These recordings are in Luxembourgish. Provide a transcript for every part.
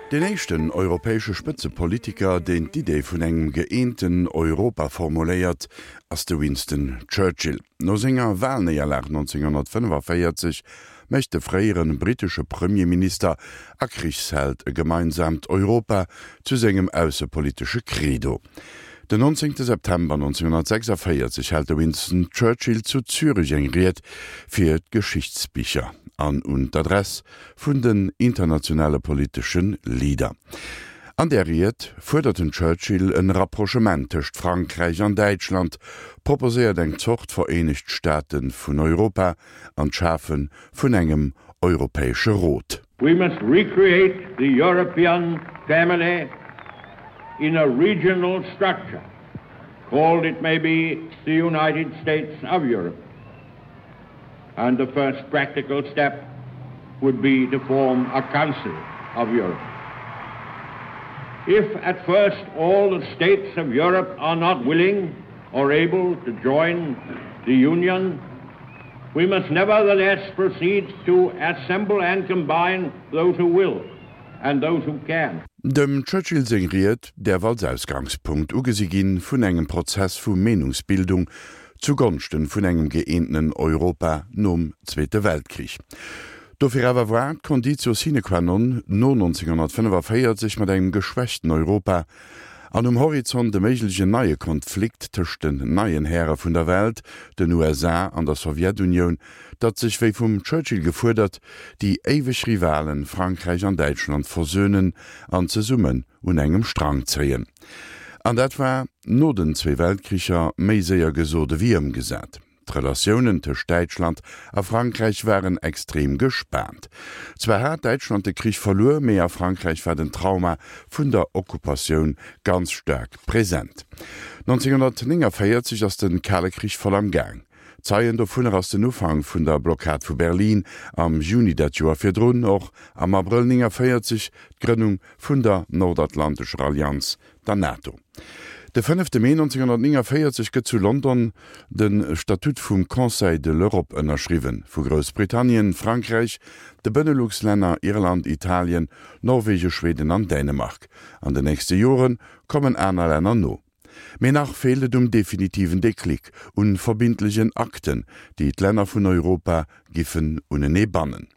Deen éischten europäesche Spëtzepolitiker, deen d'Idee vun engem gëeenten Europa formuléiert, ass de Winston Churchill. No senger Walnéierlag 1945 mécht de fréiere brittesche Premierminister a Krichsheld e gemeinsaamt Europa zu sengem aussepolitesche Credo. Den 19 September 1946 hält de Winston Churchill zu Zürech eng Ried fir d'Geschichtsbicher an un d'Adress vun den internationale politesche Leader. An där Ried fuerdert den Churchill en Rapprochement tëscht Frankräich an Däitschland, proposéiert eng Zort Vereenegt Staate vun Europa an d'Schafe vun engem Europäesche Rot. We must recreate the European family in a regional structure, called it may be the United States of Europe. And the first practical step would be to form a Council of Europe. If at first all the states of Europe are not willing or able to join the Union, we must nevertheless proceed to assemble and combine those who will and those who can. Dem Churchill seng Ried däerf als Ausgangspunkt ugesi ginn vun engem Prozess vu Meenungsbildung zu Gonschten vun engem gëeentenen Europa nom Zweete Weltkrich. Dofir awer war d'Conditio sine qua non no 1945 mat engem geschwächten Europa an um Horizont e méiglechen neie Konflikt tëscht den neien Häre vun der Welt, den USA an der Sowjetunioun, datt sech, wéi vum Churchill gefuerdert, déi éiweg Rivalen Frankräich an Däitschland versönen an zesummen un engem Strang zéien. An dat war no den zwee Weltkricher méi séier gesot ewéi ëmgesat. D'Relatiounen tëscht Däitschland a Frankräich waren extrem gespaant. Zwar hat Däitschland de Krich verluer, mee a Frankräich war den Trauma vun der Okkupatioun ganz staark present. 1949 ass de Kale Krich voll am Gaang. Zeien dovunner ass den Ufank vun der Blockad vu Berlin am Juni dat Joer virdrun, och am Abrëll 49 d'Grënnung vun der Nordatlantescher Allianz, der NATO. De fënnefte Mee 1949 gëtt zu London de Statut vum Conseil de l'Europe ënnerschriwwen, vu Groussbritannien, Frankräich, de Benelux-Länner, Irland, Italien, Norwegen, Schweden an Dänemark. An den nächste Jore kommen aner Länner no. Mee nach feelt et um definitiven Déclic, un verbindlegen Akten, déi d'Länner vun Europa giffen unenee bannen.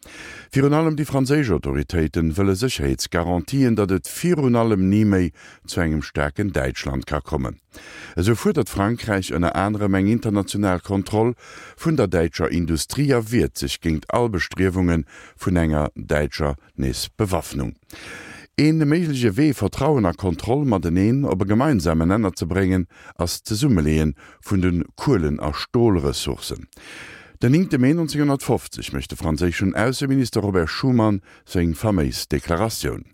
Virun allem déi franséisch Autoritéiten wëlle Sécherheetsgarantien, datt et virun allem ni méi zu engem staarken Däitschland ka kommen. Esou fuerdert Frankräich ënner anerem eng international Kontroll vun der däitscher Industrie a wiert sech géingt all Bestriewunge vun enger däitscher Nees Bewaffnung. Ee méigleche Wee, Vertrauen a Kontroll mateneen op e gemeinsamen Nenner ze bréngen, ass d'Zesummeleeë vun de Kuelen a Stolressourcen. Den 9 Mee 1950 mécht de franséischen Ausseminister Robert Schuman seng faméis Deklaratioun.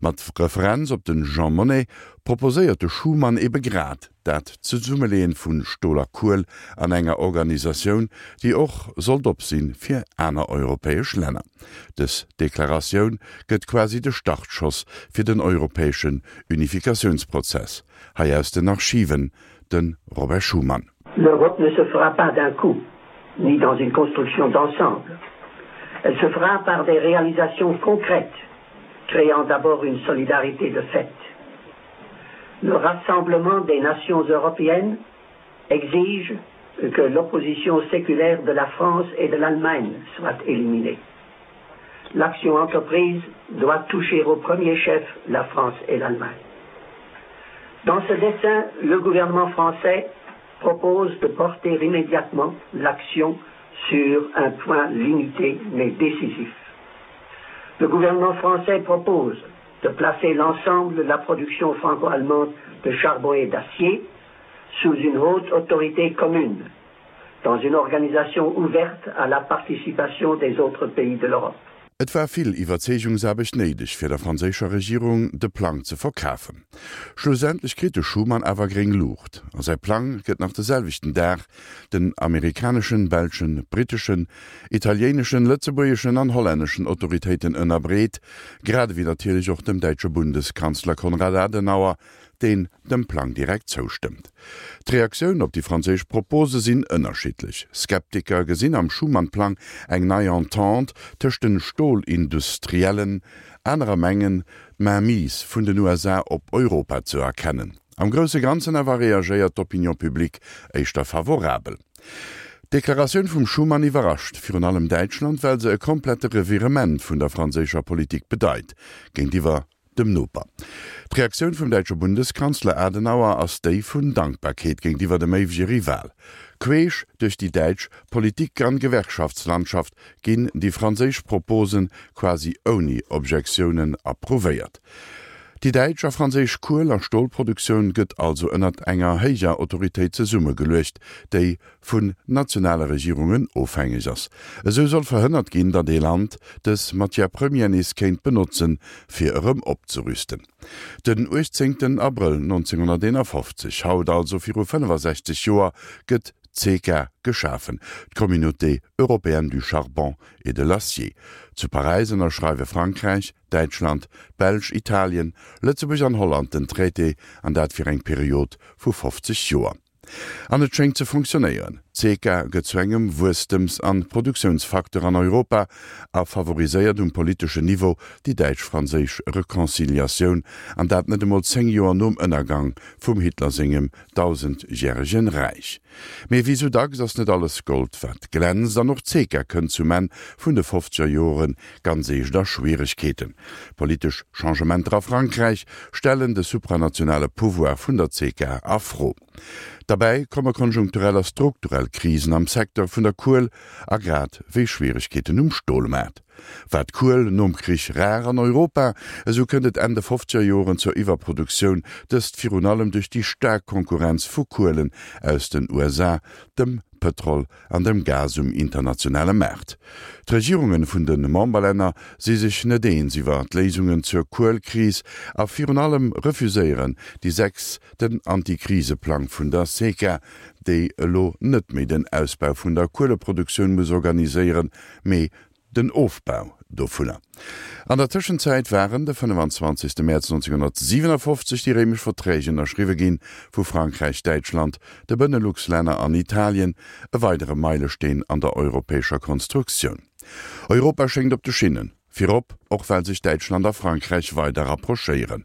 Mat Referenz op de Jean Monnet proposéiert de Schuman ebe grad dat Zesummeleeën vu Stol a Kuel an enger Organisatioun, déi och sollt op sinn fir aner europäesch Länner. Dës Deklaratioun gëtt quasi de Startschoss fir den europäeschen Unifikatiounsprozess. Hei aus den Archiven de Robert Schuman. L'Europe ne se fera pas d'un coup, ni dans une construction d'ensemble. Elle se fera par des réalisations concrètes, créant d'abord une solidarité de fait. Le rassemblement des nations européennes exige que l'opposition séculaire de la France et de l'Allemagne soit éliminée. L'action entreprise doit toucher au premier chef la France et l'Allemagne. Dans ce dessin, le gouvernement français propose de porter immédiatement l'action sur un point limité mais décisif. Le gouvernement français propose de placer l'ensemble de la production franco-allemande de charbon et d'acier sous une haute autorité commune, dans une organisation ouverte à la participation des autres pays de l'Europe. Et war vill Iwwerzeegungsaarbecht néideg, fir der franséischer Regierung de Plang ze verkafen. Schlussendlech kritt de Schuman awer gréng Luucht a säi Plang gëtt nach de selwechten Dag den amerikaneschen, belschen, britteschen, italiéineschen, lëtzebuergeschen an hollänneschen Autoritéiten ënnerbreet, grad ewéi natierlech och dem däitsche Bundeskanzler Konrad Adenauer. deen dem Plang direkt zoustëmmt. D'Reaktioun op déi franséisch Propose sinn ënnerschiddlech. Skeptiker gesinn am Schuman-Plang eng nei Entente tëscht den Stolindustriellen, anerer mengen, d'Mainmise vun den USA op Europa ze erkennen. Am grousse Ganzen awer reagéiert d'Opinion publique éischter favorabel. D'Deklaratioun vum Schuman iwwerrascht virun allem Däitschland, well se e komplette Revirement vun der franséischer Politik bedeit géintiwwer dem Noper. D'Reaktioun vum däitsche Bundeskanzler Adenauer ass déi vun Dankbarkeet géintiwwer dem éiwege Rival. Queesch duerch déi däitsch Politik an Gewerkschaftslandschaft ginn déi franséisch Proposen quasi ouni Objektiounen approuvéiert. Déi däitsch a franséisch Kuel a Stolproduktioun gëtt also ënnert enger héijer Autoritéit zesummegeluecht, déi vun nationale Regierungen ofhängeg ass. Esou soll verhënnert ginn, datt ee Land dës Matière première nees kéint benotzen, fir erëm opzerüsten. Den 18 Abrëll 1951, haut also viru 65 Joer, gëtt d'CECA geschafen, d'Communauté européenne du charbon et de l'acier. Zu Paräis ënnerschreiwe Frankräich, Däitschland, d'Belsch, Italien, Lëtzebuerg an Holland den Traité, an dat fir eng Period vu 50 Joer. An et schéngt ze fonctionnéieren. D'CECA gëtt zu engem Wuesstems an Produktiounsfacteur an Europa a favoriséiert um politeschen Niveau déi däitsch-franséisch Reconciliatioun, an dat net emol 10 Joer nom Ënnergang vum Hitler sengem dausendjäregen Räich. Mee wéi sou dacks ass net alles Gold wat glänzt, an och d'CECA kënnt zum Enn vun de fofzeger Joren ganz eescht a Schwieregkeeten. Politesch Changementer a Frankräich stellen de supranationale Pouvoir vun der CECA a Fro. Derbäi komme konjunkturell a strukturell Krisen am Secteur vun der Kuel a grad wéi Schwieregkeeten um Stolmaart. War d'Kuel nom Krich rar an Europa, esou kënnt et Enn de fofzeger Joren zur Iwwerproduktioun, dëst virun allem duerch déi staark Konkurrenz vu Kuelen aus den USA, dem Pëtrol an dem Gas um internationale Maart. D'Regierunge vun de Memberlänner si sech net eens iwwer d'Léisungen zur Kuelkris a virun allem refuséieren déi 6 den Antikriseplang vun der SECA, déi elo net méi den Ausbau vun der Kueleproduktioun muss organiséieren, mee den Ofbau dovunner. An der Tëschenzäit waren de 25. Mäerz 1957 déi Réimesch Verträg ënnerschriwwe ginn, vu Frankräich, Däitschland, de Benelux-Länner an Italien, e weidere Meilesteen an der europäescher Konstruktioun. Europa schéngt op de Schinnen. Virop och well sech Däitschland a Frankräich weider rapprochéieren.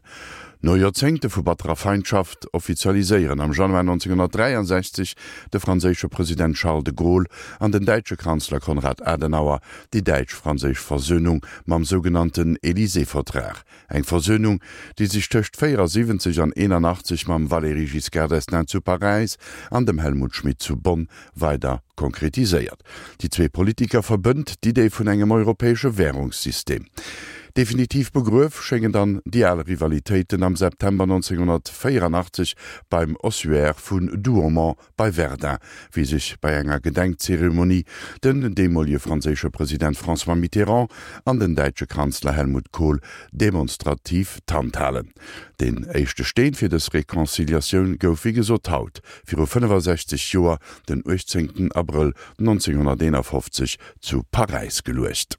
No Joerzéngte vu batterer Feindschaft offizialiséieren am Januar 1963 de franséische President Charles de Gaulle an den däitsche Kanzler Konrad Adenauer déi däitsch-franséisch Versönung mam sougenannten Élysée-Vertrag, eng Versönung, déi sech tëscht 74 an 81 mam Valéry Giscard d'Estaing zu Paräis an dem Helmut Schmidt zu Bonn weider konkretiséiert. Déi zwee Politiker verbënnt d'Idee vun engem europäesche Wärungssystem. Definitiv begruef schéngen dann déi al Rivalitéiten am September 1984 beim Ossuaire vun Douaumont bei Verdun, wéi sech bei enger Gedenkzeremonie den deemolege franséische President François Mitterrand an den däitsche Kanzler Helmut Kohl demonstrativ d'Hand halen. Deen éischte Steen fir dës Reconciliatioun gouf wéi gesot haut viru 65 Joer, den 18 Abrëll 1951 zu Paräis geluecht.